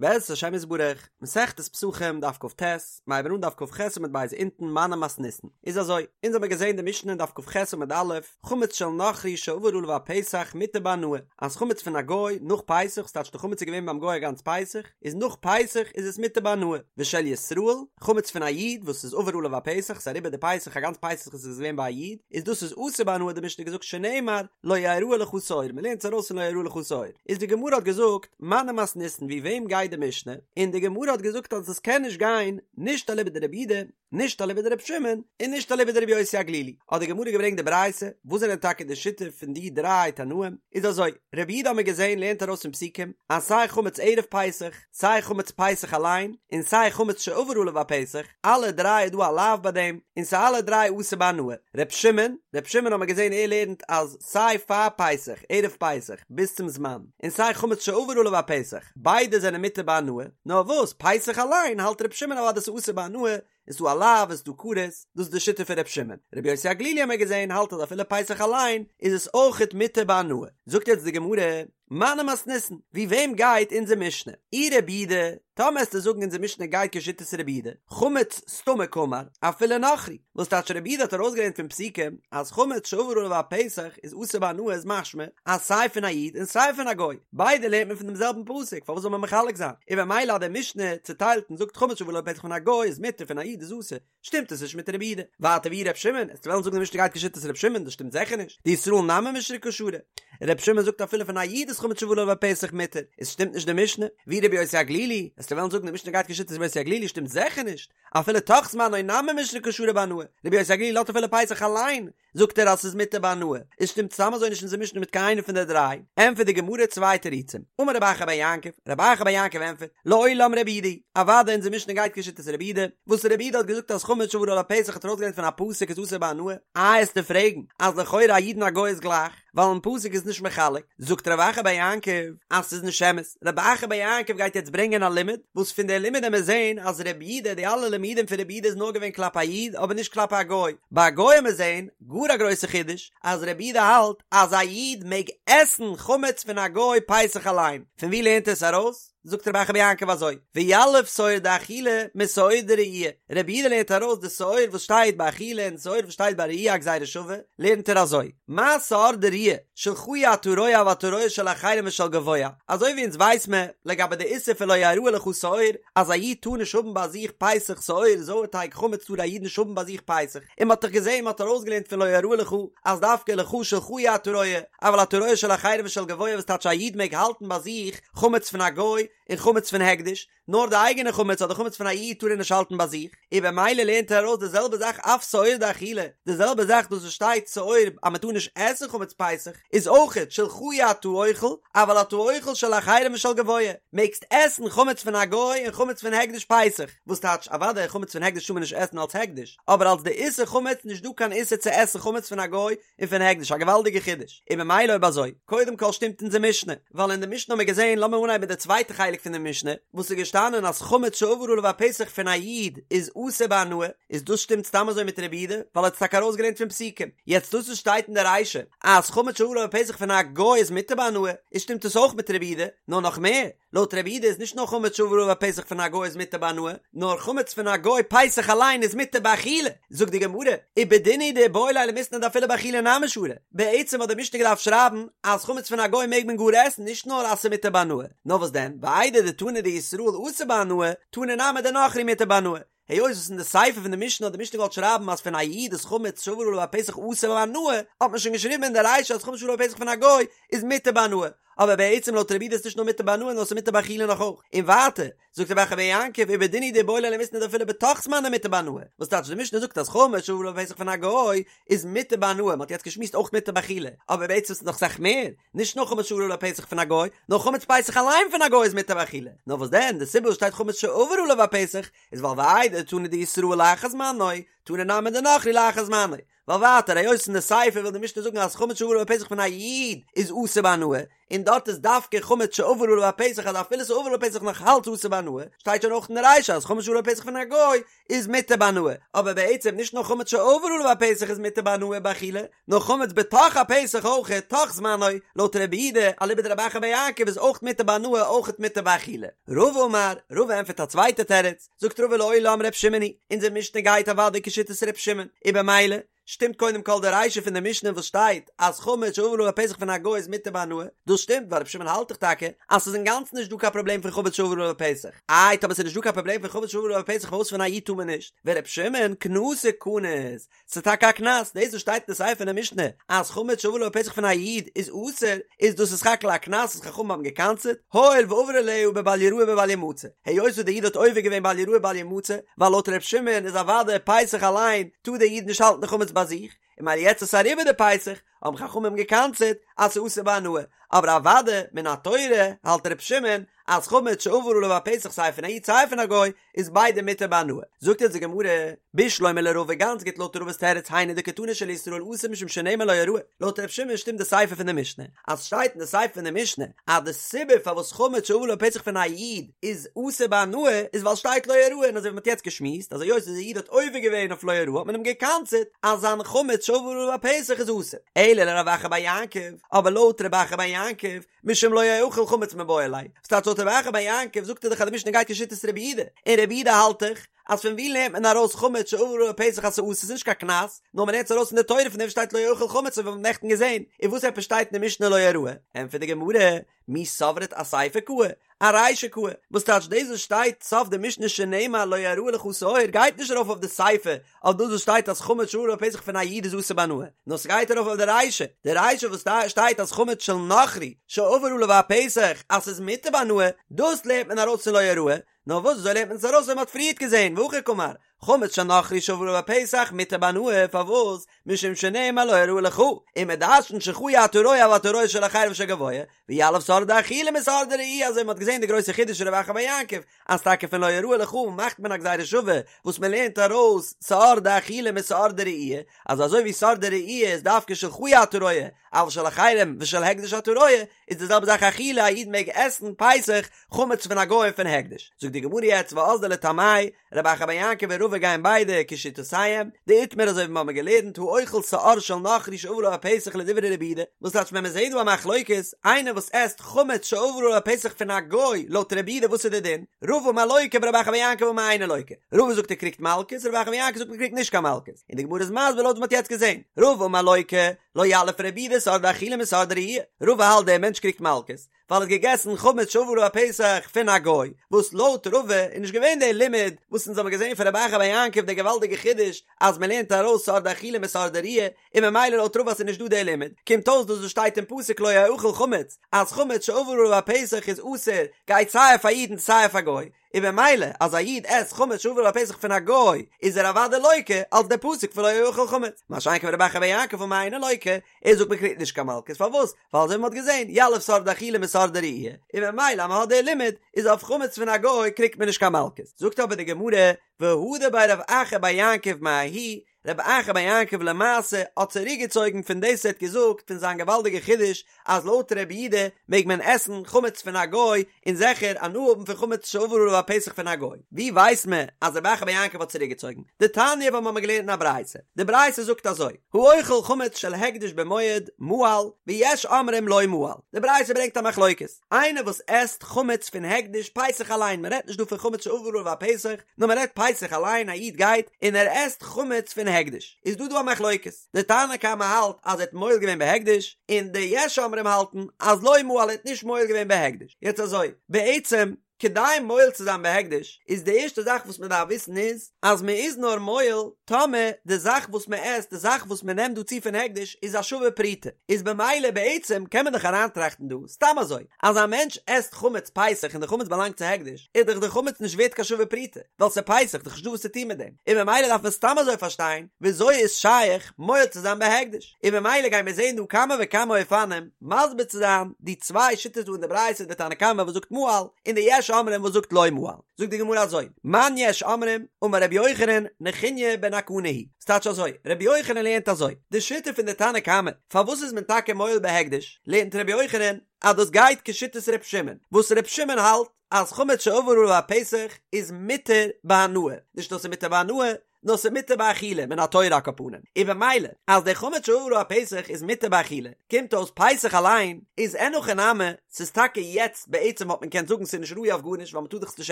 בעזרת השם יתברך, מסכת פסחים דף כט, מ'הייבן אן דף כח עמוד ב' אונטן מני מתניתין. איז אזוי, אונז האמיר געזען די משנה אין דף כח עמוד א', חמץ של נכרי שעבר עליו הפסח מותר בהנאה, אז חמץ פון א גוי נאך פסח, ס'טייטש די חמץ איז געווען ביים גוי א גאנץ פסח, איז נאך פסח איז עס מותר בהנאה, ושל ישראל, חמץ פון א איד וואס איז עבר עליו הפסח, ס'איז אריבער די פסח א גאנץ פסח איז עס געווען ביי א איד, איז דאס איז אסור בהנאה האט די משנה געזאגט שנאמר לא יראה לך שאור, מ'לערנט עס ארויס פון לא יראה לך שאור, איז די גמרא האט געזאגט מני מתניתין ווי וועם גייט די משנה, און די גמרא האט געזאגט אז עס קען נישט גיין נישט אליבא דרבי יהודה, נישט אליבא דרבי שמעון, און נישט אליבא דרבי יוסי הגלילי, האט די גמרא געברענגט די ברייתא, וואס זענען טאקע די שיטה פון די דריי תנאים, איז אזוי, רבי יהודה האט מען געזען לערנט ארויס פון פסוקים אז סיי חמץ ערב פסח, סיי חמץ פסח אליין, און סיי חמץ שעבר עליו הפסח, אלע דריי איז דא א לאו ביי דעם, און ס'איז אלע דריי אסור בהנאה. ר' שמעון, ר' שמעון האט מען געזען ער לערנט אז סיי פאר פסח, ערב פסח, ביז צום זמן, און סיי חמץ שעבר עליו הפסח, ביידע זענען מותר בהנאה, נאר וואס, פסח אליין האלט ר' שמעון אוודאי ס'איז אסור בהנאה, איז דא א לאו, איז דא כרת, דאס איז די שיטה פון ר' שמעון. רבי יוסי הגלילי האט מען געזען האלט אז אפילו פסח אליין איז עס אויכעט מותר בהנאה. זאגט יעצט די גמרא, מני מתניתין, ווי וועם גייט אונזער משנה? אי רבי יהודה, טאמער עסטו זאגן אונזער משנה גייט כשיטת רבי יהודה, חמץ סתמא קאמר, אפילו נכרי, וואס טייטש רבי יהודה האט ארויסגעלערנט פון פסוקים אז חמץ שעבר עליו הפסח איז אסור בהנאה איז משמע אז סיי פון א איד און סיי פון א גוי, ביידע לערנט מען פון דעם זעלבן פסוק, פארוואס זאל מען מחלק זיין? און במילא אז די משנה צוטיילט און זאגט חמץ שעבר עליו הפסח פון א גוי איז מותר פון א איד איז אסור, שטימט עס נישט מיט רבי יהודה. ווייטער ואי ר' שמעון, עסטו וועלן זאגן די משנה גייט כשיטת ר' שמעון, דאס שטימט זיכער נישט, דישראל נמי מישרא קא שרי. ר' שמעון זאגט אפילו פון א איד איז חמץ שעבר עליו הפסח מותר, איז שטימט נישט די משנה. ואי רבי יוסי הגלילי, עסטו וועלן זאגן די משנה גייט כשיטת רבי יוסי הגלילי, שטימט זיכער נישט, אפילו תוך זמנו נמי מישרא קא שרי בהנאה, רבי יוסי הגלילי לאזט אפילו פסח אליין, זאגט ער אז ס'איז מותר בהנאה, איז שטימט סתם אזוי נישט אונזער משנה מיט קיין איינע פון די דריי, ענטפערט די גמרא צוויי תירוצים, אמר רב אחא בר יעקב, רב אחא בר יעקב ענטפערט, לעולם רבי יהודה היא, אוודאי אונזער משנה גייט כשיטת רבי יהודה, וואס רבי יהודה האט געזאגט אז חמץ שעבר עליו הפסח האט ארויסגעלערנט פון א פסוק איז אסור בהנאה, איי עסטו פרעגן אז לכאורה א איד און א גוי איז גלייך, ווייל אין פסוק איז נישט מחלק, זאגט רב אחא בר יעקב אז ס'איז נישט אמת, רב אחא בר יעקב גייט יעצט ברענגען א לימוד, וואס פון די לימוד עמיר זעהן אז רבי יהודה די אלע לימודים פון רבי יהודה איז נאר געווען כלפי א איד אבער נישט כלפי א גוי, ביי א גוי עמיר זעהן, גאר א גרויסע חידוש, אז רבי יהודה האלט אז א איד מעג עסן חמץ פון א גוי פסח אליין, פון ווי לערנט ער עס ארויס? זאגט רב אחא בר יעקב אזוי, ויליף שאור דאכילה משאור דראי', רבי יהודה לערנט ארויס די שאור וואס שטייט ביי אכילה און שאור וואס שטייט ביי ראי' א גזירה שווה, לערנט ער אזוי, מה שאור דראי', שלך אי אתה רואה אבל אתה רואה של אחרים ושל גבוה, אזוי ווי אונז ווייס מען לגבי די איסור פון לא יראה לך שאור, אז א איד טאר נישט האבן ביי זיך פסח שאור, זויערטייג חמץ טאר א איד נישט האבן ביי זיך פסח, און מען האט דאך געזען מען האט ארויסגעלערנט פון לא יראה לך אז דווקא לך שלך אי אתה רואה, אבל אתה רואה של אחרים ושל גבוה וואס טייטש א איד מעג האלטן ביי זיך חמץ פון א גוי און חמץ פון הקדש, נאר די אייגענע חמץ אדער חמץ פון א איד טאר ער נישט האלטן ביי זיך, און במילא לערנט ער ארויס די זעלבע זאך אף שאור דאכילה, די זעלבע זאך דאס וואס שטייט שאור אז מען טאר נישט עסן חמץ פסח, איז אויכעט שלך אי אתה אוכל, אבל אתה אוכל של אחרים ושל גבוה, מעגסט עסן חמץ פון א גוי און חמץ פון הקדש פסח, וואס טייטש אוודאי חמץ פון הקדש טאר מען נישט עסן אלס הקדש, אבער אלס די איסור חמץ נישט דא קיין איסור צו עסן חמץ פון א גוי און פון הקדש, א געוואלדיגע חידוש, און במילא אויב אזוי, קודם כל שטימט אונזער משנה, ווייל אין די משנה האבן מיר געזען, לאמיר אנהייבן מיט די צווייטע חלק פון די משנה, וואס איז געשטאנען אז חמץ שעבר עליו הפסח פון א איד איז אסור בהנאה, איז דאס שטימט סתם אזוי מיט רבי יהודה, ווייל ער האט עס טאקע ארויסגעלערנט פון פסוקים, יעצט דאס וואס שטייט אין די רישא אז חמץ שעבר עליו הפסח פון א גוי איז מותר בהנאה, איז שטימט עס אויך מיט רבי יהודה, נאר נאך מער, לויט רבי יהודה איז נישט נאר חמץ שעבר עליו הפסח פון א גוי איז מותר בהנאה, נאר חמץ פון א גוי פסח אליין איז מותר באכילה, זאגט די גמרא, ובדין הוא דאיבעי ליה למיתנא דאפילו באכילה נמי שרי, בעצם האט די משנה געדארפט שרייבן אז חמץ פון א גוי מעג מען גאר עסן נישט נאר אז ס'איז מותר בהנאה, נאר וואס דען, ואיידי דתנא דישראל אסור בהנאה, תנא נמי דנכרי מותר בהנאה, היות וואס אין די סיפא פון די משנה האט די משנה געוואלט שרייבן אז פון א איד איז חמץ שעבר עליו הפסח אסור בהנאה, האט מען שוין געשריבן אין די רישא אז חמץ שעבר עליו הפסח פון א גוי איז מותר בהנאה, אבער בעצם לויט רבי יהודה איז נישט נאר מותר בהנאה נאר ס'איז מותר באכילה נאך אויך. און ווייטער, זאגט רב אחא בר יעקב ובדין הוא דאיבעי ליה למיתנא דאפילו בתוך זמנו מותר בהנאה, וואס טייטש די משנה זאגט אז חמץ שעבר עליו הפסח פון א גוי איז מותר בהנאה, מ'האט יעצט געשמועסט אויך מותר באכילה, אבער בעצם איז נאך אסאך מער, נישט נאר חמץ שעבר עליו הפסח פון א גוי, נאר חמץ פסח אליין פון א גוי איז מותר באכילה. נאר וואס דען, די סיבה וואס שטייט חמץ שעבר עליו הפסח, איז ווייל ואיידי דתנא דישראל לאחר זמנו, תנא נמי דנכרי לאחר זמנו, ווייל ווייטער היות אין די סיפא וויל די משנה זאגן אז חמץ שעבר עליו הפסח פון א איד איז אסור בהנאה, און דארט איז דווקא חמץ שעבר עליו הפסח אז אפילו ס'עבר עליו הפסח נאך אלץ אסור בהנאה, שטייט שוין אויך אין די רישא אז חמץ שעבר עליו הפסח פון א גוי איז מותר בהנאה, אבער בעצם נישט נאר חמץ שעבר עליו הפסח איז מותר בהנאה באכילה, נאר חמץ בתוך הפסח אויך, תוך זמנו, לויט רבי יהודה, אליבא דרב אחא בר יעקב איז אויך מותר בהנאה אויך מותר באכילה. רבא אמר, רבא ענטפערט א צווייטע תירוץ, זאגט רבא לעולם ר' שמעון היא, אונזער משנה גייט אוודאי כשיטת ר' שמעון, און במילא, שטימט קודם כל די רישא פון די משנה וואס שטייט אז חמץ שעבר עליו הפסח פון א גוי איז מותר בהנאה, דאס שטימט ווייל ר' שמעון האלט דאך טאקע אז ס'איז אינגאנצן נישט דא קיין פראבלעם פון חמץ שעבר עליו הפסח, איי טאמער ס'איז נישט דא קיין פראבלעם פון חמץ שעבר עליו הפסח פארוואס פון א איד טאר מען נישט? ור' שמעון קנסא קניס, ס'איז טאקע א קנס, דאס וואס שטייט אין די סיפא פון די משנה אז חמץ שעבר עליו הפסח פון א איד איז אסור, איז דאס איז סך הכל א קנס וואס חכמים האבן געקנס'עט, הואיל ועבר עליה בבל יראה ובל ימצא, היות וואס דער איד האט עובר געווען בל יראה בל ימצא, ווייל לויט ר' שמעון איז אוודאי פסח אליין טאר דער איד נישט האלטן די חמץ ביי זיך, און ממילא יעצט איז אריבער די פסח, האבן חכמים געקנס'עט אז ס'איז אסור בהנאה, אבער אוודאי מן התורה האלט ר' שמעון אז חמץ שעבר עליו הפסח סיי פון א איד סיי פון א גוי איז ביידע מותר בהנאה. זאגט אונז די גמרא, בשלמא לרבא גאנץ גוט לויט רבא'ס תירוץ היינו דקתני של ישראל אסור משום שנאמר לא יראה, לויט ר' שמעון שטימט די סיפא פון די משנה, אז שטייט אין די סיפא פון די משנה אז די סיבה פארוואס חמץ שעבר עליו הפסח פון א איד איז אסור בהנאה איז ווייל שטייט לא יראה און אזוי ווי מ'האט יעצט געשמועסט אז היות די איד האט עובר געווען אויף לא יראה האט מען אים געקנס'עט אז זיין חמץ שעבר עליו הפסח איז אסור. אלא לרב אחא בר יעקב, אבער לויט רב אחא בר יעקב, משום לא יאכל חמץ מיבעי ליה, וואס טייטש לויט רב אחא בר יעקב זאגט ער דאך אז די משנה גייט כשיטת רבי יהודה, און רבי יהודה האלט דאך אז פון ווי לערנט מען ארויס חמץ שעבר עליו הפסח אז ס'אסור ס'איז נישט קיין קנס, נאר מ'לערנט עס ארויס פון די תורה פון דעם שטייט לא יאכל חמץ אזוי ווי מ'האט נעכטן געזען, און וואס עפעס שטייט אין די משנה לא יראה? ענטפערט די גמרא, מי סברת אסיפא קאי, ארישא קאי, וואס טייטש דאס וואס שטייט סוף די משנה שנאמר לא יראה לך שאור גייט נישט ארויף אויף די סיפא אויף דאס וואס שטייט אז חמץ שעבר עליו הפסח פון א איד איז אסור בהנאה, נאר ס'גייט ארויף אויף די רישא, די רישא וואס שטייט אז חמץ של נכרי שעבר עליו הפסח אז ס'איז מותר בהנאה, דאס לערנט מען ארויס פון לא יראה, נאר וואס אזוי לערנט מען עס ארויס ווי מ'האט פריערט געזען, והכי קאמר, חמץ של נכרי שעבר עליו הפסח מותר בהנאה, פארוואס? משום שנאמר לא יראה לך, און מ'דרש'נט שלך אי אתה רואה אבל אתה רואה של אחרים ושל גבוה, ויליף שאור דאכילה משאור דראי' אזוי מ'האט געזען די גרויסע חידוש פון רב אחא בר יעקב, אז טאקע פון לא יראה לך מאכט מען א גזירה שווה וואס מ'לערנט ארויס שאור דאכילה משאור דראי', אז אזוי ווי שאור דראי' איז דווקא שלך אי אתה רואה, אבל של אחרים ושל הקדש אתה רואה, איז די זעלבע זאך אכילה, א איד מעג עסן פסח חמץ פון א גוי און פון הקדש. זאגט די גמרא יעצט ואזדו לטעמייהו, רב אחא בר יעקב און רבא גייען ביידע כשיטותיהם, דאיתמר אזוי ווי מיר האבן געלערנט האוכל שאור של נכרי שעבר עליו הפסח לדברי רבי יהודה, וואס טייטש ווען מען זעט דא א מחלוקת, איינער וואס עסט חמץ שעבר עליו הפסח פון א גוי, לויט רבי יהודה וואס איז די דין? רבא אמר לוקה ורב אחא בר יעקב אמר אינו לוקה, רבא זאגט ער קריגט מלקות, רב אחא בר יעקב זאגט מען קריגט נישט קיין מלקות, און די גמרא איז מסביר לויט וואס מען האט יעצט געזען, רבא אמר לוקה, לא יליף רבי יהודה שאור דאכילה משאור דראי', רבא האלט דער מענטש קריגט מלקות, ווייל ער האט געגעסן חמץ שעבר עליו הפסח פון א גוי, וואס לויט רבא איז נישט געווען דער לימוד וואס אונז האבן געזען פון רב אחא בר יעקב דער געוואלדיגע חידוש אז מען לערנט ארויס שאור דאכילה משאור דראי', און ממילא לויט רבא אז ס'איז נישט דא דער לימוד, קומט אויס דאס וואס שטייט אין פסוק לא יאכל חמץ, אז חמץ שעבר עליו הפסח איז אסור, גייט סיי אויף א איד און סיי אויף א גוי, און במילא אז א איד עסט חמץ שעבר עליו הפסח פון א גוי איז ער אוודאי לוקה אלס דער פסוק פון לא יאכל חמץ, מה שאין כן רב אחא בר יעקב אמר אינו לוקה, ער זאגט מען קריגט נישט קיין מלקות פארוואס? ווייל אזוי ווי מען האט געזען יליף שאור דאכילה משאור דראי', און במילא אז מען האט דער לימוד איז אויף חמץ פון א גוי קריגט מען נישט קיין מלקות, זאגט אבער די גמרא והדר ביה רב אחא בר יעקב מההיא, רב אחא בר יעקב למעשה האט צוריקגעצויגן פון דאס ער האט געזאגט פון זיין געוואלדיגע חידוש אז לויט רבי יהודה מעג מען עסן חמץ פון א גוי און זיכער הנאה האבן פון חמץ שעבר עליו הפסח פון א גוי. ווי ווייסט מען אז רב אחא בר יעקב האט צוריקגעצויגן? דתניא ווייל מ'האמיר געלערנט אין א ברייתא. די ברייתא זאגט אזוי, האוכל חמץ של הקדש במועד, מעל, ויש אומרים לא מעל. די ברייתא ברענגט א מחלוקת. איינער וואס עסט חמץ פון הקדש פסח אליין, מען רעדט נישט דא פון חמץ שעבר עליו הפסח, נאר מען רעדט פסח אליין, א איד גייט און ער עסט חמץ פון הקדש, איז דא דא א מחלוקת, די תנא קמא האלט אז ער האט מועל געווען בהקדש, און די יש אומרים האלטן אז לא מעל ער האט נישט מועל געווען בהקדש, יעצט אזוי, בעצם כדי מועל צו זיין בהקדש איז די ערשטע זאך וואס מען דארף וויסן איז אז מען איז נאר מועל טאמער די זאך וואס מען עסט, די זאך וואס מען נעמט דא צו פון הקדש איז א שווה פרוטה, איז במילא בעצם קען מען דאך אריינטראכטן דא סתם אזוי, אז א מענטש עסט חמץ פסח און די חמץ באלאנגט צו הקדש, איז דאך די חמץ נישט ווערט קיין שווה פרוטה, ווייל ס'איז פסח, דאך נישטא וואס צו טון מיט דעם, און במילא דארף מען סתם אזוי פארשטיין וויאזוי איז שייך מועל צו זיין בהקדש, און במילא גייען מיר זען דא כמה וכמה אופנים מסביר צו זיין די צוויי שיטות דא אין די ברייתא, די תנא קמא וואס זאגט מעל, און די יש. אומרים וואס זאגט לא מעל. זאגט די גמרא אזוי, מאן יש אומרים, אמר רבי יוחנן, נחוניא בן הקנה היא. ס'טייטש אזוי, רבי יוחנן לערנט אזוי, די שיטה פון די תנא קמא, פארוואס איז מען טאקע מועל בהקדש, לערנט רבי יוחנן אז דאס גייט כשיטת ר' שמעון, וואס ר' שמעון האלט אז חמץ שעבר עליו הפסח איז מותר בהנאה, נישט נאר ס'איז מותר בהנאה, נאר ס'איז מותר באכילה, מן התורה על כל פנים, און במילא אז דער חמץ שעבר עליו הפסח איז מותר באכילה, קומט אויס פסח אליין איז אין הכי נמי, ס'איז טאקע יעצט בעצם וואלט מען געקענט זאגן ס'איז נישט ראוי אויף גארנישט ווייל מ'טאר דאך עס נישט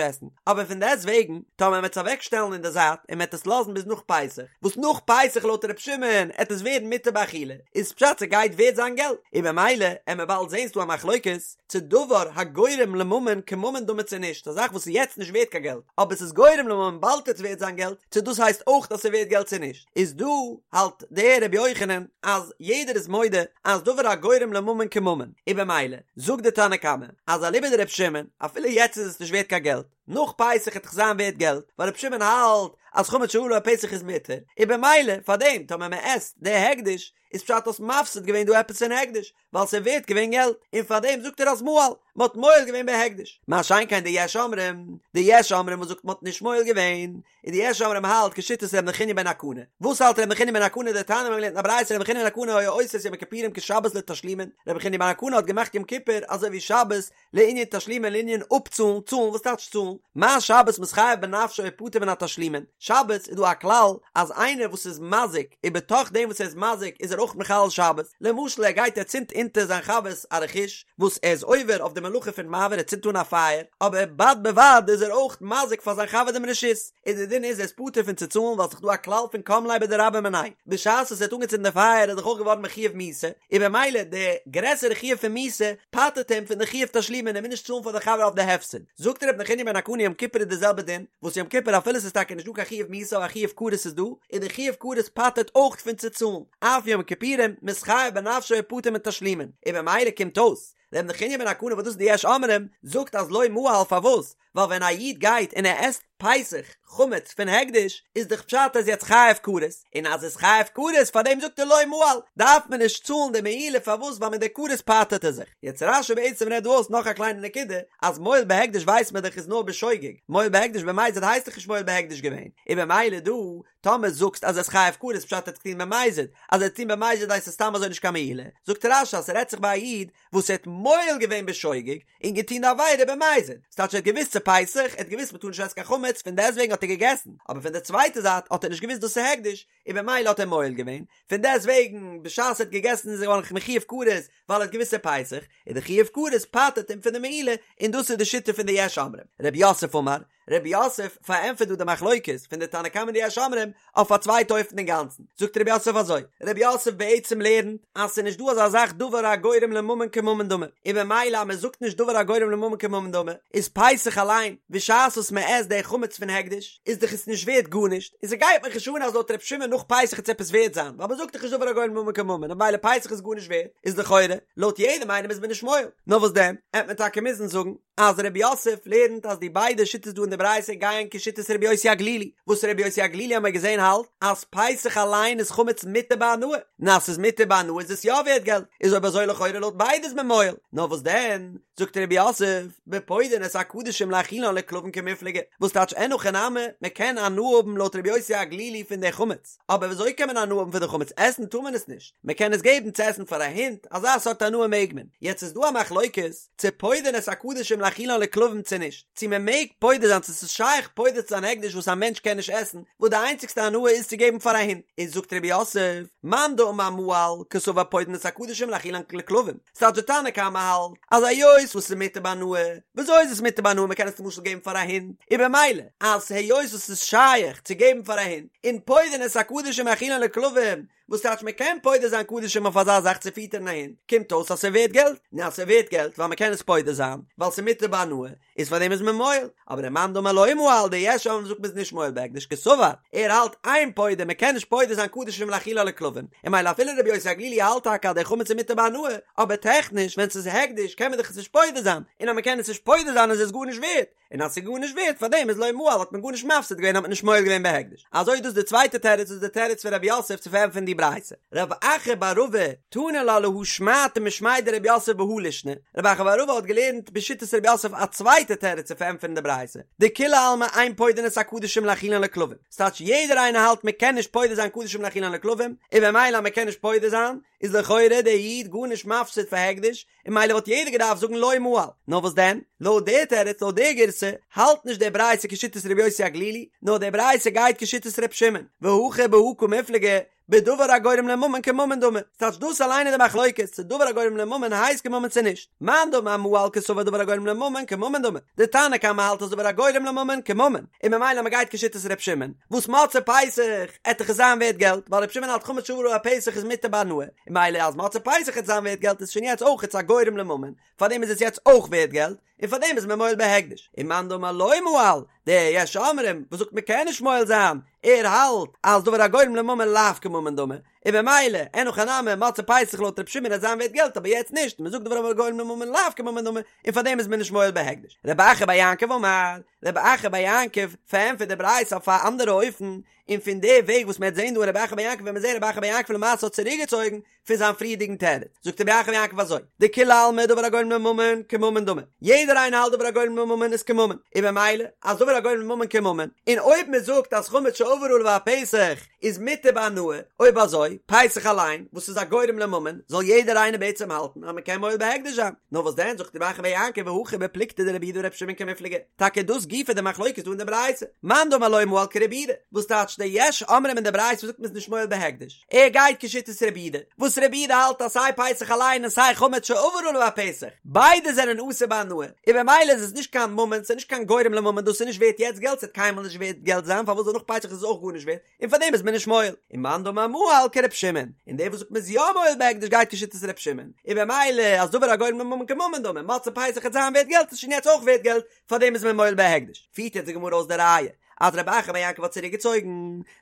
עסן, אבער פון דעסט וועגן טאמער מ'עט עס אוועק שטעלן אין די זייט און מ'עט עס לאזן ביז נאך פסח, וואס נאך פסח לויט ר' שמעון עט עס ווערן מותר באכילה, איז פשט ס'גייט ווערט זיין געלט, און במילא עמער באלד זעהן ס'דא א מחלוקת צו דבר הגורם לממון כממון דמי צו נישט, א זאך וואס איז יעצט נישט ווערט קיין געלט אבער ס'איז גורם לממון באלד עט עס ווערט זיין געלט, צו דאס הייסט אויך אז ס'ווערט געלט צו נישט, איז דא האלט דער רבי יוחנן אז יעדער איז מודה אז דבר הגורם לממון כממון, און במילא זאגט די תנא קמא אז אליבא דרבי שמעון אפילו יעצט איז עס נישט ווערט קיין געלט, נאך פסח עט דאך זיין ווערט געלט, ווייל רבי שמעון האלט אז חמץ שעבר עליו הפסח איז מותר, און במילא פארדעם טאמער מען עסט די הקדש איז פשט האסט מפסיד געווען דא עפעס פון הקדש, ווייל ס'איז ווערט געווען געלט, און פארדעם זאגט ער אז מעל, מען האט מועל געווען בהקדש, מה שאין כן די יש אומרים, די יש אומרים וואס זאגט מען האט נישט מועל געווען, און די יש אומרים האלט כשיטת ר' נחוניא בן הקנה, וואס האלט ר' נחוניא בן הקנה דתניא מיר האבן געלערנט אין א ברייתא ר' נחוניא בן הקנה היה עושה את יום הכיפורים כשבת לתשלומין, ר' נחוניא בן הקנה האט געמאכט יום כיפור אזוי ווי שבת לענין תשלומין לענין אפצאלן, צאלן, וואס טייטש צאלן? מה שבת מתחייב בנפשו ופטור מן התשלומין, שבת איז דא א כלל אז איינער וואס איז מזיק און בתוך דעם וואס ער איז מזיק איז ער אויך מחלל שבת, למשל ער גייט ער צינדט אונטער זיין חבר'ס א רכוש וואס ער איז עובר אויף די מלאכה פון מבעיר ער צינדט אן א פייער, אבער בד בבד איז ער אויך מזיק פאר זיין חבר דעם רשות, און די דין איז ער איז פטור פון צו צאלן ווייל ס'איז דא א כלל פון קם ליה בדרבה מיניה, בשעת וואס ער האט אנגעצינדן די פייער איז דאך אויך געווארן מחויב מיתה, און במילא די גרעסערע חיוב פון מיתה פטר'ט אים פון די חיוב תשלומין ער מוז נישט צאלן פאר די חבר אויף די הפסד. זאגט ר' נחוניא בן הקנה יום כיפור איז די זעלבע דין, וואס יום כיפור אפילו ס'איז טאקע נישט דא קיין חיוב מיתה אבער א חיוב כרת איז דא, און די חיוב כרת פטר'ט אויך פון צו צאלן, אף יום כיפורים מתחייב בנפשו ופטור מתשלומין, און במילא קומט אויס ר' נחוניא בן הקנה וואס דאס איז די יש אומרים, זאגט אז לא מעל פארוואס? ווייל ווען א איד גייט און ער עסט פסח חמץ פון הקדש איז דאך פשט ער איז יעצט חייב כרת, און אז איז חייב כרת פאר דעם זאגט ער לא מעל, דארף מען נישט צאלן די מעילה פארוואס ווייל מיט די כרת פטר'ט ער זיך. יעצט רש"י בעצם רעדט דא אויס נאך א קליינע נקודה, אז מועל בהקדש ווייסט מען דאך איז נאר בשוגג, מועל בהקדש במזיד הייסט דאך נישט מועל בהקדש געווען, און במילא דא טאמער זאגסט אז ער איז חייב כרת פשט ער האט עס געטון במזיד, אז ער האט עס געטון במזיד הייסט עס סתם אזוי נישט קיין מעילה, זאגט רש"י אז ס'רעדט זיך ביי א איד וואס ער האט מועל געווען בשוגג און געטון די עבירה במזיד, ס'טייטש ער האט געוואוסט ס'איז פסח, ער האט געוואוסט מ'טאר נישט עסן קיין חמץ, פון דעסטוועגן האט ער געגעסן, אבער פון די צווייטע זייט האט ער נישט געוואוסט דאס איז הקדש, און במילא האט ער מועל געווען, פון דעסטוועגן בשעת ער האט געגעסן איז ער געווארן מחויב כרת ווייל ער האט געוואוסט ס'איז פסח, און די חיוב כרת פטר'ט אים פון די מעילה, און דאס איז די שיטה פון די יש אומרים. רב יוסף אמר, רב יוסף פארענטפערט דא די מחלוקת פון די תנא קמא און די יש אומרים אויף א צווייטע אופן אינגאנצן, זאגט רב יוסף אזוי, רב יוסף בעצם לערנט אז ס'איז נישט דא אזא זאך דבר הגורם לממון כממון דמי, און במילא אז מ'זאגט נישט דבר הגורם לממון כממון דמי, איז פסח אליין, בשעת וואס מ'עסט די חמץ פון הקדש, איז דאך עס נישט ווערט גארנישט, און ס'גייט מיך נישט אן אז לויט ר' שמעון נאך פסח וועט עס עפעס ווערט זיין, ווייל מ'זאגט דאך נישט דבר הגורם לממון כממון, און במילא פסח איז גארנישט ווערט, איז לכאורה, לויט יעדעם איינעם איז מען נישט מועל. נאר וואס דען, עט מען טאקע מוזן זאגן, אז רב יוסף לערנט אז די ביידע שיטות דא אין די ברייתא גייען כשיטת רבי יוסי הגלילי, וואס רבי יוסי הגלילי האמיר געזען האלט אז פסח אליין איז חמץ מותר בהנאה, און אז ס'איז מותר בהנאה איז עס יא ווערט געלט, איז אויב אזוי לכאורה לויט ביידע איז מען מועל, נאר וואס דען, זאגט רב יוסף, בפודין את הקדשים להאכילן לכלבים קמיפלגי, וואס טייטש אין הכי נמי, מען קען הנאה האבן לויט רבי יוסי הגלילי פון די חמץ, אבער ווי אזוי קען מען הנאה האבן פון די חמץ, עסן טאר מען עס נישט, מען קען עס געבן צו עסן פאר א הונט, אזא סארט הנאה מעג מען, יעצט איז דא א מחלוקת, צו פודין את הקדשים להאכילן לכלבים צו נישט, צו מען מעג פודה זיין צו ס'איז שייך פודה צו זיין הקדש וואס א מענטש קען נישט עסן, וואס די איינציגסטע הנאה איז צו געבן פאר א הונט, איז זאגט רב יוסף, מאן דאמר מעל, קסבר פודין את הקדשים להאכילן לכלבים, ס'טייטש די תנא קמא האלט אז היות וואס ס'איז מותר בהנאה, וויאזוי איז עס מותר בהנאה מ'קען עס למשל געבן פאר א הונט, און במילא אז היות וואס ס'איז שייך צו געבן פאר א הונט, און פודין את הקדשים להאכילן לכלבים, וואס טייטש מען קען פודה זיין קדשים אויף אזא זאך צו פיטערן א הונט, קומט אויס אז ס'ווערט געלט, און אז ס'ווערט געלט ווייל מ'קען עס פודה זיין, ווייל ס'מותר בהנאה, איז פאר דעם איז מען מועל, אבער ומאן דאמר לא מעל די יש אומרים זאגט מ'איז נישט מועל בהקדש קסבר, ער האלט אין פודין מ'קען נישט פודה זיין קדשים להאכילן לכלבים, און ממילא אפילו רבי יוסי הגלילי האלט טאקע אז דער חמץ איז מותר בהנאה, אבער טעכניש ווען ס'איז הקדש קען מען דאך עס נישט פודה זיין, און אז מ'קען עס נישט פודה זיין איז עס גארנישט ווערט. און אז ס'איז גארנישט ווערט פארדעם איז לא מעל האט מען גארנישט מפסיד געווען האט מען נישט מועל געווען בהקדש. אזוי איז דאס די צווייטע תירוץ וואס איז די תירוץ פון רב יוסף צו פארענטפערן די ברייתא. רב אחא בר רבא תני לה להא שמעתא משמיה דרב יוסף בהא לישנא, רב אחא בר רבא האט געלערנט בשיטת רב יוסף א צווייטע תירוץ צו פארענטפערן די ברייתא, דכולי עלמא אין פודין את הקדשים להאכילן לכלבים, ס'טייטש יעדער איינער האלט מ'קען נישט פודה זיין קדשים להאכילן לכלבים, און במילא אז מ'קען נישט פודה זיין, איז לכאורה דער איד גארנישט מפסיד פאר הקדש, און ממילא וואלט יעדער געדארפט זאגן לא מעל. נאר וואס דען? לויט דער תירוץ, לויט דער גירסא, האלט נישט די ברייתא כשיטת רבי יוסי הגלילי, נאר די ברייתא גייט כשיטת ר' שמעון, והכא בהא קמיפלגי, בדבר הגורם לממון כממון דמי, ס'טייטש דאס אליין איז די מחלוקת, צו דבר הגורם לממון הייסט כממון צו נישט. מאן דאמר מעל קסבר דבר הגורם לממון כממון דמי, די תנא קמא האלט אז דבר הגורם לממון כממון, און ממילא מ'גייט כשיטת ר' שמעון, וואס מוצאי פסח עט דאך עס זיין ווערט געלט, ווייל ר' שמעון האלט חמץ שעבר עליו הפסח איז מותר בהנאה, און ממילא אז מוצאי פסח עט זיין ווערט געלט איז שוין יעצט אויך א גורם לממון, פארדעם איז עס יעצט אויך ווערט געלט, און פארדעם איז מען מועל בהקדש. און מאן דאמר לא מעל, דער יש אומרים וואס זאגט מען קען נישט מועל זיין, ער האלט אז דבר הגורם לממון לאו כממון דמי, און במילא, אין הכי נמי, מוצאי פסח לויט ר' שמעון עט זיין ווערט געלט אבער יעצט נישט, מען זאגט דבר הגורם לממון לאו כממון דמי, און פארדעם איז מען נישט מועל בהקדש. רב אחא בר יעקב אמר, רב אחא בר יעקב פארענטפערט די ברייתא אויף א אנדערע אופן, און פון די וועג וואס מען וועט זען דא אין רב אחא בר יעקב ווען מען זען רב אחא בר יעקב למעשה האט צוריקגעצויגן פון זיין פריערדיגן תירוץ, זאגט רב אחא בר יעקב אזוי, דכולי עלמא דבר הגורם לממון כממון דמי, יעדער איינער האלט דבר הגורם לממון איז כממון, און במילא אז דבר הגורם לממון כממון, און אויב מען זאגט אז חמץ שעבר עליו הפסח איז מותר בהנאה, אויב אזוי, פסח אליין, וואס איז א גורם לממון, זאל יעדער איינער בעצם האלטן אז מען קען מועל בהקדש זיין. נאר וואס דען, זאגט רב אחא בר יעקב והכא בפלוגתא דרבי יהודה ורבי שמעון קמיפלגי, טאקע דאס גופא די מחלוקת דא אין די ברייתא, מאן דאמר לא מעל כרבי יהודה, וואס טייטש די יש אומרים אין די ברייתא וואס זאגט מען איז נישט מועל בהקדש, ער גייט כשיטת רבי יהודה, וואס רבי יהודה האלט אז סיי פסח אליין און סיי חמץ שעבר עליו הפסח, ביידע זענען אסור בהנאה, און במילא איז עס נישט קיין ממון, ס'איז נישט קיין גורם לממון, דאס איז נישט ווערט יעצט געלט, ס'וועט קיינמאל נישט ווערט געלט זיין, פארוואס זאל נאך פסח איז עס אויך גארנישט ווערט, און פאר דעם איז מען נישט מועל, און מאן דאמר מעל כר' שמעון, און דער וואס זאגט מען איז יא מועל בהקדש גייט כשיטת ר' שמעון, און במילא אז דבר הגורם לממון כממון דמי, מוצאי פסח וועט זיין ווערט געלט איז שוין יעצט אויך ווערט געלט, פאר דעם איז מען מועל בהקדש. פירט יעצט די גמרא אויס די ראיה אז רב אחא בר יעקב האט צוריק געצויגן,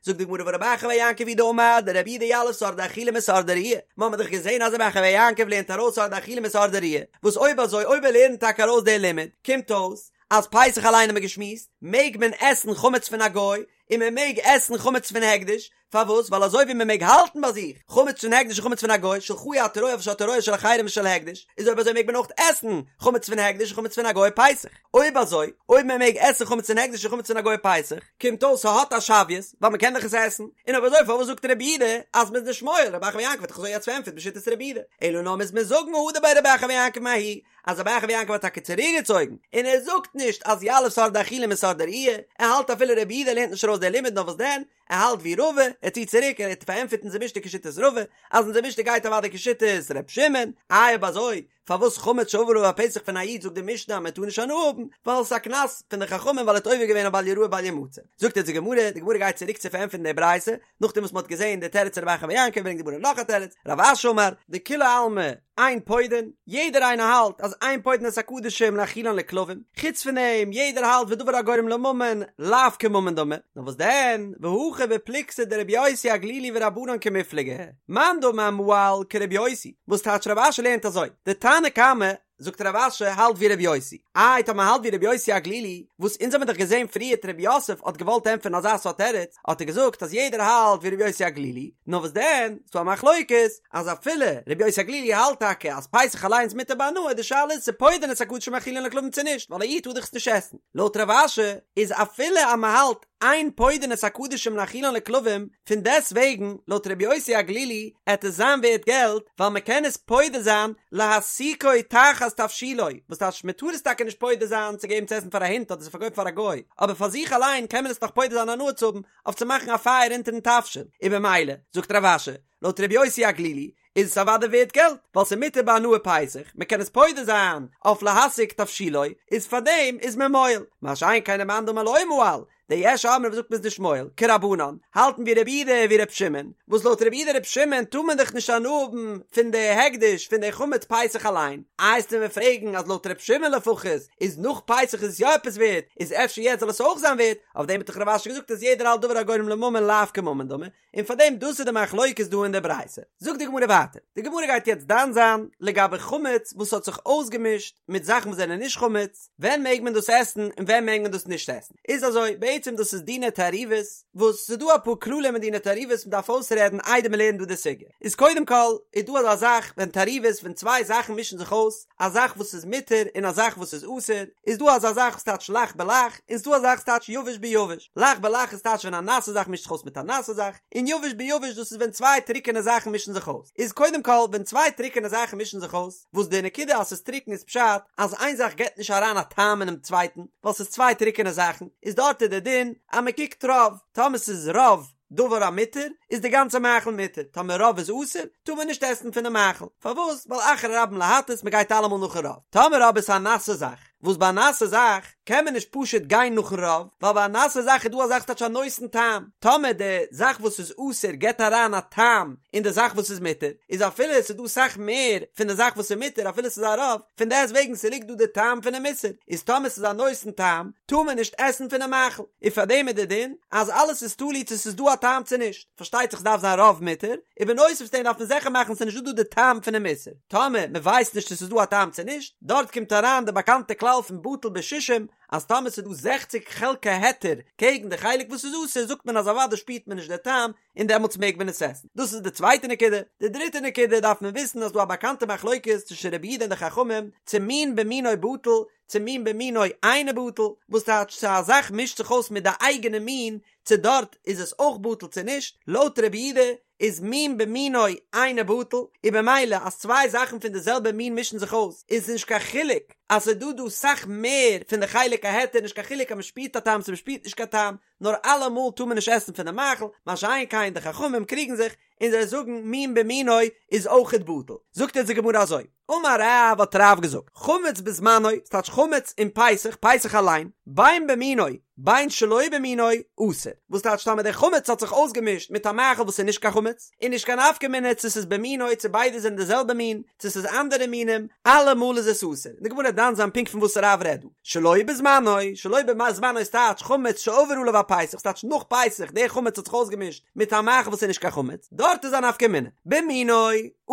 זאגט די גמרא והא רב אחא בר יעקב הוא דאמר דרבי יהודה יליף שאור דאכילה משאור דראייה, מ'האמיר דאך געזען אז רב אחא בר יעקב לערנט ארויס שאור דאכילה משאור דראייה, וואס אויב אזוי אויב ער לערנט טאקע ארויס די לימוד, קומט אויס אז פסח אליין האמיר געשמועסט, מעג מען עסן חמץ פון א גוי, און מען מעג עסן חמץ פון הקדש, פארוואס? ווייל אזוי ווי מען מעג האלטן ביי זיך חמץ פון הקדש און חמץ פון א גוי, שלך אי אתה רואה אבל שאתה רואה של אחרים ושל הקדש, איז אויב אזוי מעג מען אויך עסן חמץ פון הקדש און חמץ פון א גוי פסח. אויב אזוי, אויב מען מעג עסן חמץ פון הקדש און חמץ פון א גוי פסח, קומט אויס ס'האט א שוויות, ווייל מען קען דאך עס עסן, און אויב אזוי פארוואס זאגט רבי יהודה אז מען איז נישט מועל, רב אחא בר יעקב האט דאך אזוי יעצט פארענטפערט בשיטת רבי יהודה, אלא נאר מוז מען זאגן הדר ביה רב אחא בר יעקב מההיא, אז רב אחא בר יעקב האט טאקע צוריקגעצויגן, און ער זאגט נישט אז יליף שאור דאכילה משאור דראייה, ער האלט אפילו רבי יהודה לערנט נישט ארויס דער לימוד נאר וואס דען, ער האלט ווי רבא, ער ציט צוריק, ער האט פארענטפערט אונזער משנה כשיטת רבא, אז אונזער משנה גייט אוודאי כשיטת ר' שמעון, איי אויב אזוי, פארוואס חמץ שעבר עליו הפסח פון א איד זאגט די משנה אז מען טאר נישט הנאה האבן, ווייל עס איז א קנס פון די חכמים ווייל ער האט עובר געווען אויף בל יראה בל ימצא. זאגט אונז די גמרא, די גמרא גייט צוריק צו פארענטפערן די ברייתא, נאכדעם וואס מען האט געזען די תירוץ רב אחא בר יעקב ברענגט די גמרא נאך א תירוץ, רב אשי אמר, דכולי עלמא אין פודין, יעדער איינער האלט אז אין פודין את הקדשים להאכילן לכלבים, חוץ פון דעם יעדער האלט ודבר הגורם לממון לאו כממון דמי, נאר וואס דען, והכא בפלוגתא דרבי יוסי הגלילי ורבנן קמיפלגי, מאן דאמר מעל כרבי יוסי, וואס טייטש רב אשי לערנט אזוי, די תנא קמא זאגט רב אשי האלט ווי רבי יוסי, איי טאמער האלט ווי רבי יוסי הגלילי, וואס אונז האמיר דאך געזען פריערט רב יוסף האט געוואלט ענטפערן אזא סארט תירוץ, האט ער געזאגט אז יעדער האלט ווי רבי יוסי הגלילי, נאר וואס דען, ס'דא א מחלוקת, אז אפילו רבי יוסי הגלילי האלט טאקע אז פסח אליינס איז מותר בהנאה, די שאלה איז צו פודין את הקדשים להאכילן לכלבים צו נישט, ווייל א איד טאר דאך עס נישט עסן. לויט רב אשי איז אפילו אז מ'האלט אין פודין את הקדשים להאכילן לכלבים, פון דעסט וועגן לויט רבי יוסי הגלילי עט עס זיין ווערט געלט ווייל מען קען עס פודה זיין להסיקו תחת תבשילו, וואס טייטש מען טאר עס טאקע נישט פודה זיין צו געבן צו עסן פאר א הונט אדער צו פארקויפן פאר א גוי, אבער פאר זיך אליין קען מען עס נאך פודה זיין הנאה צו האבן אויף צו מאכן א פייער אונטערן תבשיל, און במילא זאגט רב אשי לויט רבי יוסי הגלילי איז עס אוודאי ווערט געלט, ווייל ס'איז מותר בהנאה פסח, מ'קען עס פודה זיין אויף להסיק תבשילו, איז פארדעם איז מען מועל, מה שאין כן למאן דאמר לא מעל, די יש אומרים וואס זאגט מ'איז נישט מועל, כרבנן, האלטן ווי רבי יהודה ווי רבי שמעון, וואס לויט רבי יהודה רבי שמעון טאר מען דאך נישט הנאה האבן פון די הקדש פון די חמץ פסח אליין, איי וועסטו מיר פרעגן אז לויט רבי שמעון לפחות איז נאך פסח איז עס יא עפעס ווערט, איז אפשר יעצט זאל עס אויך זיין ווערט, אויף דעם האט דאך רב אשי געזאגט אז יעדער האלט דבר הגורם לממון לאו כממון דמי, און פאר דעם דאס איז די מחלוקת דא אין די ברייתא. זאגט די גמרא ווייטער, די גמרא גייט יעצט דן זיין לגבי חמץ וואס האט זיך אויסגעמישט מיט זאכן וואס זענען נישט חמץ, ווען מעג מען דאס עסן און ווען מעג מען דאס נישט עסן. איז אזוי, בעצם דאס איז דיני תערובות, וואס ס'איז דא אפאר כללים אין דיני תערובות מ'דארף אויסרעדן איידער מ'לערנט דא די סוגיא. איז קודם כל איז דא אזא זאך ווען תערובות ווען צוויי זאכן מישן זיך אויס, א זאך וואס איז מותר און א זאך וואס איז אסור, איז דא אזא זאך וואס טייטש לח בלח, און ס'דא אזא זאך וואס טייטש יבש ביבש. לח בלח איז טייטש ווען א נאסע זאך מישט זיך אויס מיט א נאסע זאך, און יבש ביבש דאס איז ווען צוויי טרוקענע זאכן מישן זיך אויס. איז קודם כל ווען צוויי טרוקענע זאכן מישן זיך אויס, וואס די נקודה אז ס'איז טרוקן איז פשט אז איין זאך געבט נישט אריין א טעם אינעם צווייטן, ווייל ס'איז צוויי טרוקענע זאכן, איז דארט איז די דין אז מ'קוקט רוב, טאמער ס'איז רוב דבר המותר איז די גאנצע מאכל מותר, טאמער רוב איז אסור טאר מען נישט עסן פונעם מאכל, פארוואס? ווייל אחרי רבים להטות מ'גייט אלעמאל נאכן רוב, טאמער אבער ס'איז א נאסע זאך, וואס ביי א נאסע זאך קען מען נישט פשוט גיין נאכן רוב, ווייל ביי א נאסע זאך איז דא א זאך ס'טייטש א נותן טעם, טאמער די זאך וואס איז אסור געבט אריין א טעם אין די זאך וואס איז מותר, איז אפילו עס איז דא סאך מער פון די זאך וואס איז מותר אפילו ס'איז א רוב, פון דעסט וועגן ס'ליגט דא די טעם פונעם איסור, איז טאמער ס'איז א נותן טעם טאר מען נישט עסן פונעם מאכל, און פארדעם איז די דין אז אלעס איז תלוי צו ס'איז דא א טעם צו נישט, פארשטייט זיך ס'דארף זיין רוב מותר, און בנוסף צו דעם דארף מען זיכער מאכן ס'איז נישט דא דא די טעם פונעם איסור. טאמער מען ווייסט נישט צו ס'איז דא א טעם צו נישט, דארט קומט אריין די באקאנטע כלל פון בטל בשישים, אז טאמער ס'איז דא זעכציק חלקי היתר קעגן די חלק וואס איז אסור זאגט מען אז אוודאי שפירט מען נישט די טעם און דעמאלטס מעג מען עס עסן. דאס איז די צווייטע נקודה. די דריטע נקודה דארף מען וויסן אז ס'דא א באקאנטע מחלוקת צווישן רבי יהודה און די חכמים צו מין במינו בטל צו מין במינו אינו בטל, וואס טייטש צו א זאך מישט זיך אויס מיט די אייגענע מין צו דארט איז עס אויך בטל צו נישט, לויט רבי יהודה איז מין במינו אינו בטל, און במילא אז צוויי זאכן פון די זעלבע מין מישן זיך אויס איז נישט קיין חילוק אז ס'איז דא דא סאך מער פון די חלק ההיתר נישט קיין חילוק אז מ'שפירט א טעם צו מ'שפירט נישט קיין טעם נאר אלעמאל טאר מען נישט עסן פון די מאכל, מה שאין כן די חכמים קריגן זיך און זיי זאגן מין במינו איז אויכעט בטל, זאגט אונז די גמרא אזוי. אמר רב האט רב געזאגט, חמץ בזמנו, ס'טייטש חמץ אין פסח, פסח אליין, בין במינו בין שלא במינו, אסור. וואס טייטש טאמער דער חמץ האט זיך אויסגעמישט מיט א מאכל וואס איז נישט קיין חמץ, איז נישט קיין נפקא מינה צו ס'איז במינו צו ביידע זענען די זעלבע מין, צו ס'איז אנדערע מינים, אלעמאל איז עס אסור. און די גמרא וועט דן זיין פונקט פון וואס רב רעדט דא. שלא בזמנו, שלא בזמנו איז טייטש חמץ שעבר עליו הפסח, ס'טייטש נאך פסח, דער חמץ האט זיך אויסגעמישט מיט א מאכל וואס איז נישט קיין חמץ, דארט איז א נפקא מינה. במינו,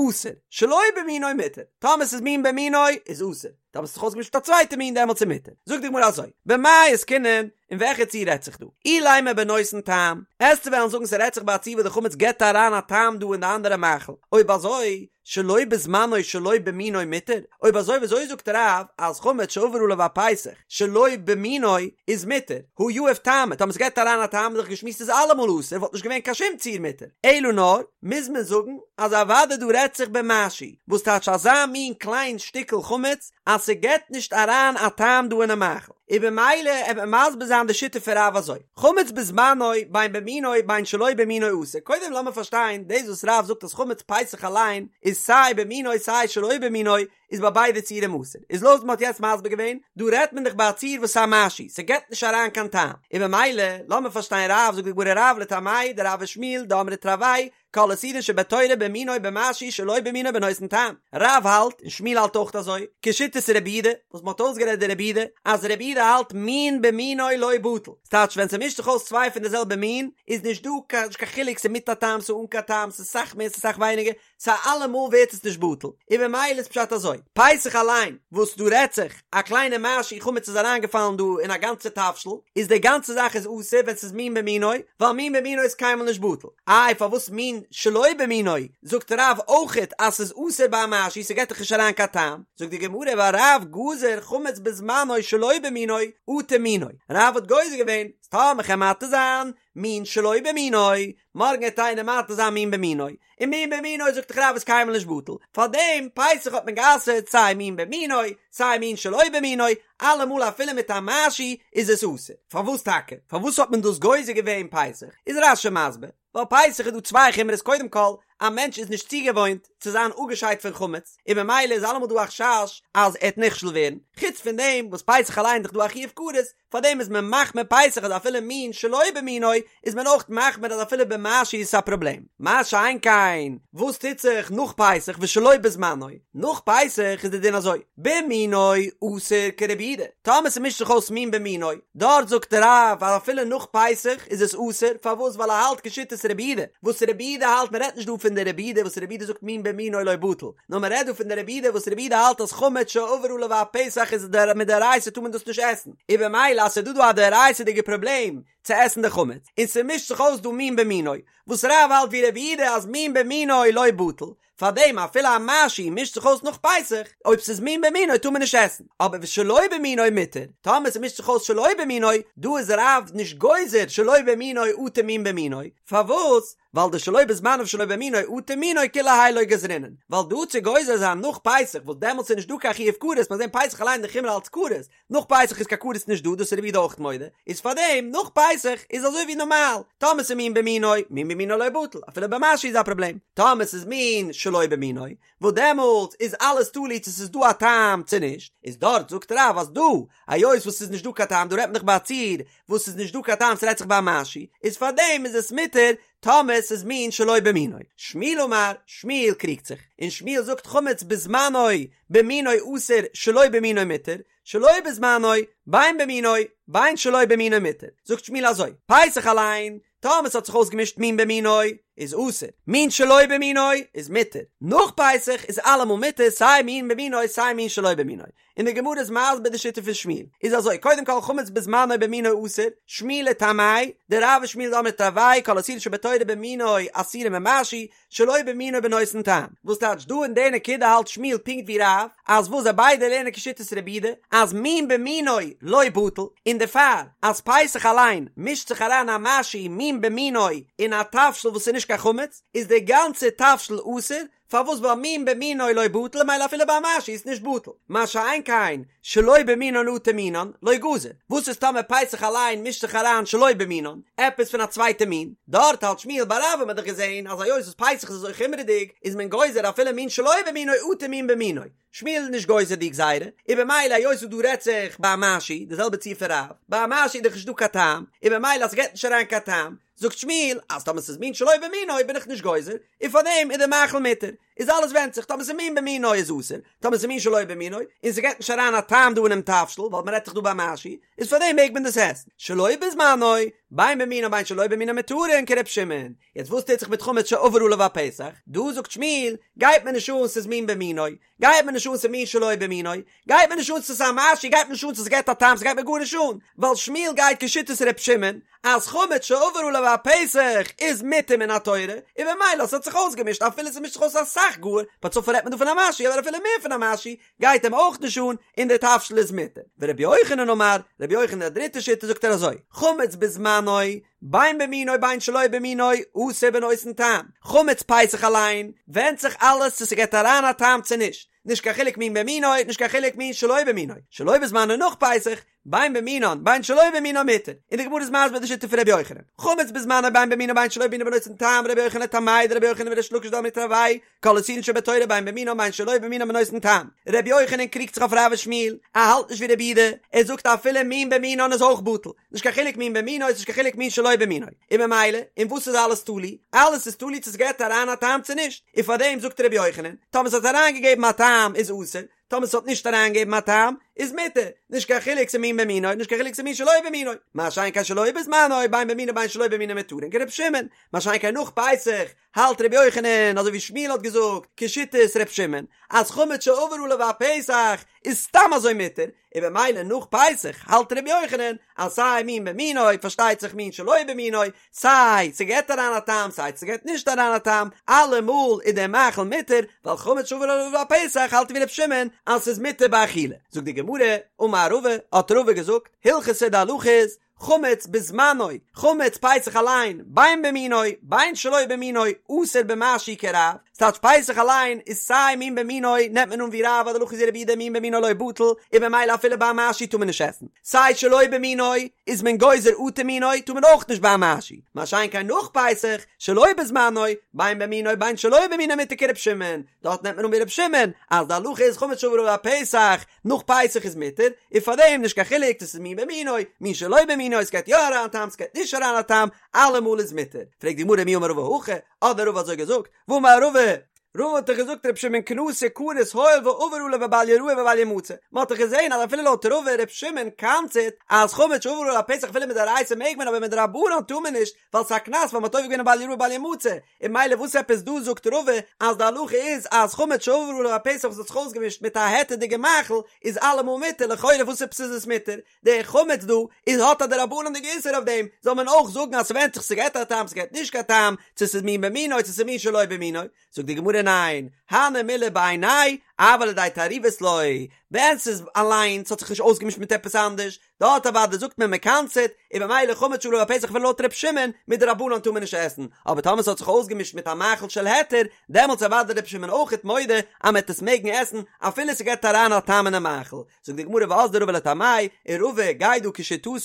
אסור, שלא במינו מותר, טאמער ס'איז מין במינו איז אסור, טאמער ס'האט זיך אויסגעמישט מיט א צווייטע מין דעמאלטס איז מותר. זאגט די גמרא אזוי, במאי עסקינן, אין וועלכע ציור רעדט זיך דא? אילימא בנותן טעם, עסטו וועלן זאגן ס'רעדט זיך ביי א ציור וואס די חמץ געבט אריין א טעם דא אין די אנדערע מאכל, אויב אזוי שלא בזמנו שלא במינו מותר, אויב אזוי וויאזוי זאגט רב אז חמץ שעבר עליו הפסח שלא במינו איז מותר, הא יהיב טעמא, טאמער ס'געבט אריין א טעם איז דאך געשמועסט איז אלעמאל אסור וואלט נישט געווען קיין שום ציור מותר, אלא נאר מוז מען זאגן אז אוודאי דא רעדט זיך במשהו, וואס טייטש אזא מין קליין שטיקל חמץ אז ס'געבט נישט אריין א טעם דא אינעם מאכל, און במילא עט מען מסביר זיין די שיטה פון רב אזוי, חמץ בזמנו בין במינו בין שלא במינו אסור, קודם לאמיר פארשטיין דאס וואס רב זאגט אז חמץ פסח אליין איז סיי במינו סיי שלא במינו איז ביי ביידע ציורים אסור, איז לויט וואס מ'האט יעצט מסביר געווען, דא רעדט מען דאך ביי א ציור וואס איז א משהו, ס'געבט נישט אריין קיין טעם, און במילא לאמיר פארשטיין רב, זאגט די גמרא רב לטעמיה דרב ושמואל דאמרי תרוייהו כל איסורין שבתורה במינו במשהו שלא במינו בנותן טעם, רב האלט און שמואל האלט אויך אזוי, כשיטת רבי יהודה, וואס מ'האט אויסגערעדט די רבי יהודה, אז רבי יהודה האלט מין במינו לא בטל, ס'טייטש ווען ס'מישט זיך אויס צוויי פון די זעלבע מין, איז נישט דא קיין נישט קיין חילוק ס'איז מיט א טעם ס'איז אן קיין טעם ס'איז סאך מער ס'איז סאך ווייניגער, סא אלעמאל ווערט עס נישט בטל, און במילא איז פשט אזוי, פסח אליין וואס דא רעדט זיך א קליינע משהו חמץ איז אריינגעפאלן דא אין א גאנצע תבשיל, איז די גאנצע זאך איז אסור ווען ס'איז מין במינו, ווייל מין במינו איז קיינמאל נישט בטל, איי פארוואס מין שלא במינו זאגט רב אויכעט אז ס'איז אסור ביי א משהו ס'געט דאך נישט אריין קיין טעם, זאגט די גמרא ווייל רב גזר חמץ בזמנו שלא במינו אטו מינו, רב האט גוזר געווען אז טאמער כ'על מתיר זיין מין שלא במינו, מארגן העט איינער מתיר זיין מין במינו, און מין במינו זאגט דאך רב איז קיינמאל נישט בטל, פארדעם פסח האט מען גע'אסר'ט סיי מין במינו סיי מין שלא במינו, אלעמאל אפילו מיט א משהו איז עס אסור, פארוואס טאקע? פארוואס האט מען דאס גוזר געווען פסח? איז רש"י מסביר, ווייל פסח איז דא צוויי חומרות קודם כל. א מענטש איז נישט צוגעוואוינט צו זיין אפגעשיידט פון חמץ, און ממילא איז אלעמאל דא א חשש אז ער וועט נכשל ווערן, חוץ פון דעם וואס פסח אליין איז דאך דא א חיוב כרת, פארדעם איז מען מחמיר פסח אז אפילו מין שלא במינו איז מען אויך מחמיר אז אפילו במשהו איז עס א פראבלעם. מה שאין כן וואס טוט זיך נאך פסח ושלא בזמנו, נאך פסח איז די דין אזוי, במינו אסור כרבי יהודה, טאמער ס'מישט זיך אויס מין במינו, דארט זאגט רב אז אפילו נאך פסח איז עס אסור, פארוואס ווייל ער האלט כשיטת רבי יהודה, וואס רבי יהודה האלט מען רעדט נישט דא פון די רבי יהודה וואס רבי יהודה זאגט מין במינו לא בטל, נאר מען רעדט דא פון די רבי יהודה וואס רבי יהודה האלט אז חמץ שעבר עליו הפסח איז מדאורייתא טאר מען דאס נישט עסן, און במילא אז ס'איז דא דא א דאורייתא'דיגע פראבלעם צו עסן די חמץ, און ס'מישט זיך אויס דא מין במינו, וואס רב האלט ווי רבי יהודה אז מין במינו לא בטל, פארדעם אפילו א משהו מישט זיך אויס נאך פסח, אויב ס'איז מין במינו טאר מען נישט עסן, אבער ושלא במינו מותר, טאמער ס'מישט זיך אויס שלא במינו, דא איז רב נישט גוזר שלא במינו אטו מין במינו, פארוואס? ווייל דשלא בזמנו ושלא במינו אטו מינו כולי האי לא גזרינן, ווייל דא צו גוזר זיין נאך פסח וואס דעמאלטס איז נישט דא קיין חיוב כרת, מיר זעהן פסח אליין די חומרא אלץ כרת, נאך פסח איז קיין כרת נישט דא, דאס איז רבי יהודה אויך מודה, איז פארדעם נאך פסח איז אזוי ווי נארמאל, טאמער ס'איז מין במינו, מין במינו לא בטל, אפילו במשהו איז א פראבלעם, טאמער ס'איז מין שלא במינו, וואס דעמאלטס איז אלעס תלוי צו ס'איז דא א טעם צו נישט, איז דארט זאגט רב אז דא, היות וואס ס'איז נישט דא קיין טעם, דא רעדט מען דאך ביי א ציור וואס ס'איז נישט דא קיין טעם ס'רעדט זיך ביי א משהו, איז פארדעם איז עס מותר טאמער ס'איז מין שלא במינו. שמואל אמר, שמואל קריגט זיך, און שמואל זאגט חמץ בזמנו במינו אסור שלא במינו מותר, שלא בזמנו בין במינו בין שלא במינו מותר. זאגט שמואל אזוי, פסח אליין, טאמער ס'האט זיך אויסגעמישט מין במינו איז אסור, מין שלא במינו איז מותר, נאך פסח איז אלעמאל מותר סיי מין במינו סיי מין שלא במינו. און די גמרא איז מסביר די שיטה פון שמואל, איז אזוי, קודם כל חמץ בזמנו במינו אסור, שמואל לטעמיה, דרב ושמואל דאמרי תרוייהו כל איסורין שבתורה במינו אסורין במשהו, שלא במינו בנותן טעם. וואס טייטש דא אין די נקודה האלט שמואל פונקט ווי רב, אז וואס זיי ביידע לערנען כשיטת רבי יהודה, אז מין במינו לא בטל, און דערפאר אז פסח אליין מישט זיך אריין א משהו מין במינו אין א תבשיל וואס איז נישט קיין חמץ, איז די גאנצע תבשיל אסור, פארוואס ווייל מין במינו לא בטל ממילא אפילו ביי א משהו איז נישט בטל, מה שאין כן שלא במינן אטו מינן לא גזר, וואס איז טאמער פסח אליין מישט זיך אריין שלא במינן, עפעס פון א צווייטע מין, דארט האלט שמואל ביי רב האט מען דאך געזען אז היות וואס פסח איז אזוי חומרה'דיג איז מען גוזר אפילו מין שלא במינו אטו מין במינו, שמואל איז נישט גוזר די גזירה, און במילא היות וואס דא רעדט זיך ביי א משהו, די זעלבע ציור פון רב, ביי א משהו איז דאך נישט דא קיין טעם, און במילא אז ס'געט נישט אריין קיין טעם, זאגט שמואל אז טאמער ס'איז מין שלא במינו בין איך נישט גוזר, און פארדעם איז די מאכל מותר. איז אלעס ווענדט זיך, טאמער ס'איז מין במינו איז אסור, טאמער ס'איז מין שלא במינו, און ס'געט נישט אריין א טעם דא אינעם תבשיל, ווייל מ'רעדט זיך דא ביי משהו, איז פארדעם מעג מען דאס עסן. שלא בזמנו, בין במינו בין שלא במינו מותרין כר' שמעון. יעצט וואס טוט זיך מיט חמץ שעבר עליו הפסח? דא זאגט שמואל, גייט מיר נישט אן ס'איז מין במינו, גייט מיר נישט אן ס'איז מין שלא במינו, גייט מיר נישט אן ס'איז א משהו, גייט מיר נישט אן צו ס'געט א טעם, ס'גייט מיר גארנישט אן, ווייל שמואל גייט כשיטת ר' שמעון, אז חמץ שעבר עליו הפסח איז מותר מן התורה, און במילא ס'האט זיך אויסגעמישט אפילו ס'מישט זיך אויס אסאך גאר, בצפון רעדט מען דא פון א משהו אבער אפילו מער פון א משהו גייט אים אויך נישט אן, און דער תבשיל איז מותר. ורבי יוחנן אמר, רבי יוחנן די דריטע שיטה זאגט ער אזוי, חמץ בזמנו, בין במינו בין שלא במינו, אסור בנותן טעם. חמץ פסח אליין, ווענדט זיך אלעס צו ס'געט אריין א טעם צו נישט. נישט קיין חילוק מין במינו, נישט קיין חילוק מין שלא במינו. שלא בזמנו נאך פסח, בין במינן, בין שלא במינן מותר. און די גמרא איז מסביר די שיטה פון רבי יוחנן. חמץ בזמנו בין במינו בין שלא במינו בנותן טעם, רבי יוחנן לטעמיה דרבי יוחנן וריש לקיש דאמרי תרוייהו, כל איסורין שבתורה בין במינן בין שלא במינן בנותן טעם. רבי יוחנן קריגט זיך אויף רב ושמואל, ער האלט נישט ווי רבי יהודה, ער זאגט אפילו מין במינן איז אויך בטל, נישט קיין חילוק מין במינו איז נישט קיין חילוק מין שלא במינו, און ממילא אין וואס איז אלעס תלוי? אלעס איז תלוי צו ס'געט אריין א טעם צו נישט, און פארדעם זאגט רבי יוחנן, טאמער ס'האט אריינגעגעבן א טעם איז אסור, טאמער ס'האט נישט אריינגעגעבן א טעם איז מותר, נישט קיין חילוק ס'איז מין במינו נישט קיין חילוק ס'איז מין שלא במינו, מה שאין כן שלא בזמנו בין במינו בין שלא במינו מותרין כר' שמעון, מה שאין כן נאך פסח האלט ר' יוחנן אזוי ווי שמואל האט געזאגט כשיטת ר' שמעון אז חמץ שעבר עליו הפסח איז סתם אזוי מותר, און במילא נאך פסח האלט ר' יוחנן אז סיי מין במינו פארשטייט זיך מין שלא במינו, סיי ס'געט אריין א טעם סיי ס'געט נישט אריין א טעם, אלעמאל איז דער מאכל מותר, ווייל חמץ שעבר עליו הפסח האלט ווי ר' שמעון אז ס'איז מותר באכילה. זאגט די גמרא, אמר רבא, האט רבא געזאגט, הלכתא די הלכה איז, חמץ בזמנו, חמץ פסח אליין, בין במינו, בין שלא במינו, אסור במשהו כרב, ס'טייטש פסח אליין איז סיי מין במינו נעמט מען אן ווי רב אז די הלכה איז ווי רבי יהודה מין במינו לא בטל, און במילא אפילו ביי א משהו טאר מען נישט עסן, סיי שלא במינו איז מען גוזר אטו מינו טאר מען אויך נישט ביי א משהו, מה שאין כן נאך פסח, שלא בזמנו, בין במינו בין שלא במינו מותר כר' שמעון, דארט נעמט מען אן ווי ר' שמעון אז די הלכה איז חמץ שעבר עליו הפסח, נאך פסח איז מותר, און פארדעם נישט קיין חילוק צו ס'איז מין במינו, מין שלא במינו, ס'גייט יא אריין א טעם ס'גייט נישט אריין א טעם, אלעמאל איז מותר. פרעגט די גמרא מי אמר רבא הכי, האט דען רבא אזוי געזאגט, והאמר רבא, רבא האט דאך געזאגט ר' שמעון קנסא קניס הואיל ועבר עליו בבל יראה ובל ימצא, מען האט דאך געזען אז אפילו לויט רבא ר' שמעון קנס'עט אז חמץ שעבר עליו הפסח אפילו מדאורייתא מעג מען אבער מדרבנן טאר מען נישט, ווייל ס'איז א קנס ווייל מ'האט עובר געווען בל יראה בל ימצא, און ממילא וואס עפעס דא זאגט רבא אז די הלכה איז אז חמץ שעבר עליו הפסח וואס האט זיך אויסגעמישט מיט א היתר'דיגע מאכל איז אלעמאל מותר, לכאורה וואס עפעס איז עס מותר? די חמץ דא איז האט א דרבנן'דיגע איסור אויף דעם, זאל מען אויך זאגן אז ס'ווענדט זיך ס'געט א טעם ס'געט נישט קיין טעם, צו ס'איז מין במינו צו ס'איז מין שלא במינו, זאגט די גמרא ניין, הני מילי בעיניה אבל לידי תערובת לא, ווען ס'איז אליינס האט זיך נישט אויסגעמישט מיט עפעס אנדערש, דארט אוודאי זאגט מען מ'קנס'עט, און במילא חמץ שעבר עליו הפסח אפילו לויט ר' שמעון, מדרבנן טאר מען נישט עסן, אבער טאמער ס'האט זיך אויסגעמישט מיט א מאכל של היתר, דעמאלטס אוודאי ר' שמעון אויכעט מודה אז מ'עט עס מעגן עסן אפילו ס'געט אריין א טעם אינעם מאכל. זאגט די גמרא ואזדא רבא לטעמיה, און רבא גייט דא כשיטתו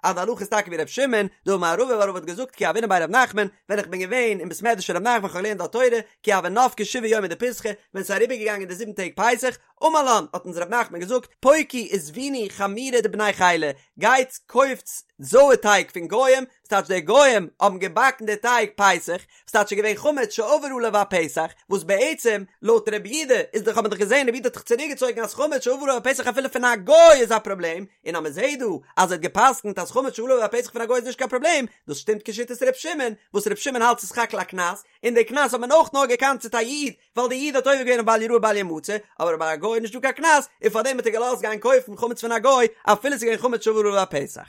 אז די הלכה איז טאקע ווי ר' שמעון, דאמר רבא ווייל רבא האט געזאגט כי הוינא בי ר' נחמן, ווען איך בין געווען אין בית מדרש פון ר' נחמן כ'האב געלערנט דארט תורה, כי הוו נפקי שבעה יומי דפסחא, ווען ס'איז אריבערגעגאנגען די זיבן טעג פסח, אמר לן, האט אונז ר' נחמן געזאגט, פוקו וזבינו חמירא דבני חילא, גייטס קויפטס זויער טייג פון גוים, וואס טייטש די גוים האבן געבאקן די טייג פסח, וואס טייטש ס'איז געווען חמץ שעבר עליו הפסח, וואס בעצם לויט רבי יהודה איז דאך האט מען דאך געזען רבי יהודה האט דאך צוריק געצויגן אז חמץ שעבר עליו הפסח אפילו פון א גוי איז א פראבלעם, און אז מען זעט דא אז ער האט געפסקנט אז חמץ שעבר עליו הפסח פון א גוי איז נישט קיין פראבלעם, דאס שטימט כשיטת ר' שמעון, וואס ר' שמעון האלט ס'איז סך הכל א קנס, און די קנס האט מען אויך נאר געקנס'עט א איד, ווייל די איד האט עובר געווען אויף בל יראה בל ימצא, אבער ביי א גוי איז נישטא קיין קנס, און פארדעם האט ער געלאזט גיין קויפן חמץ פון א גוי, אפילו ס'איז געווען חמץ שעבר עליו הפסח.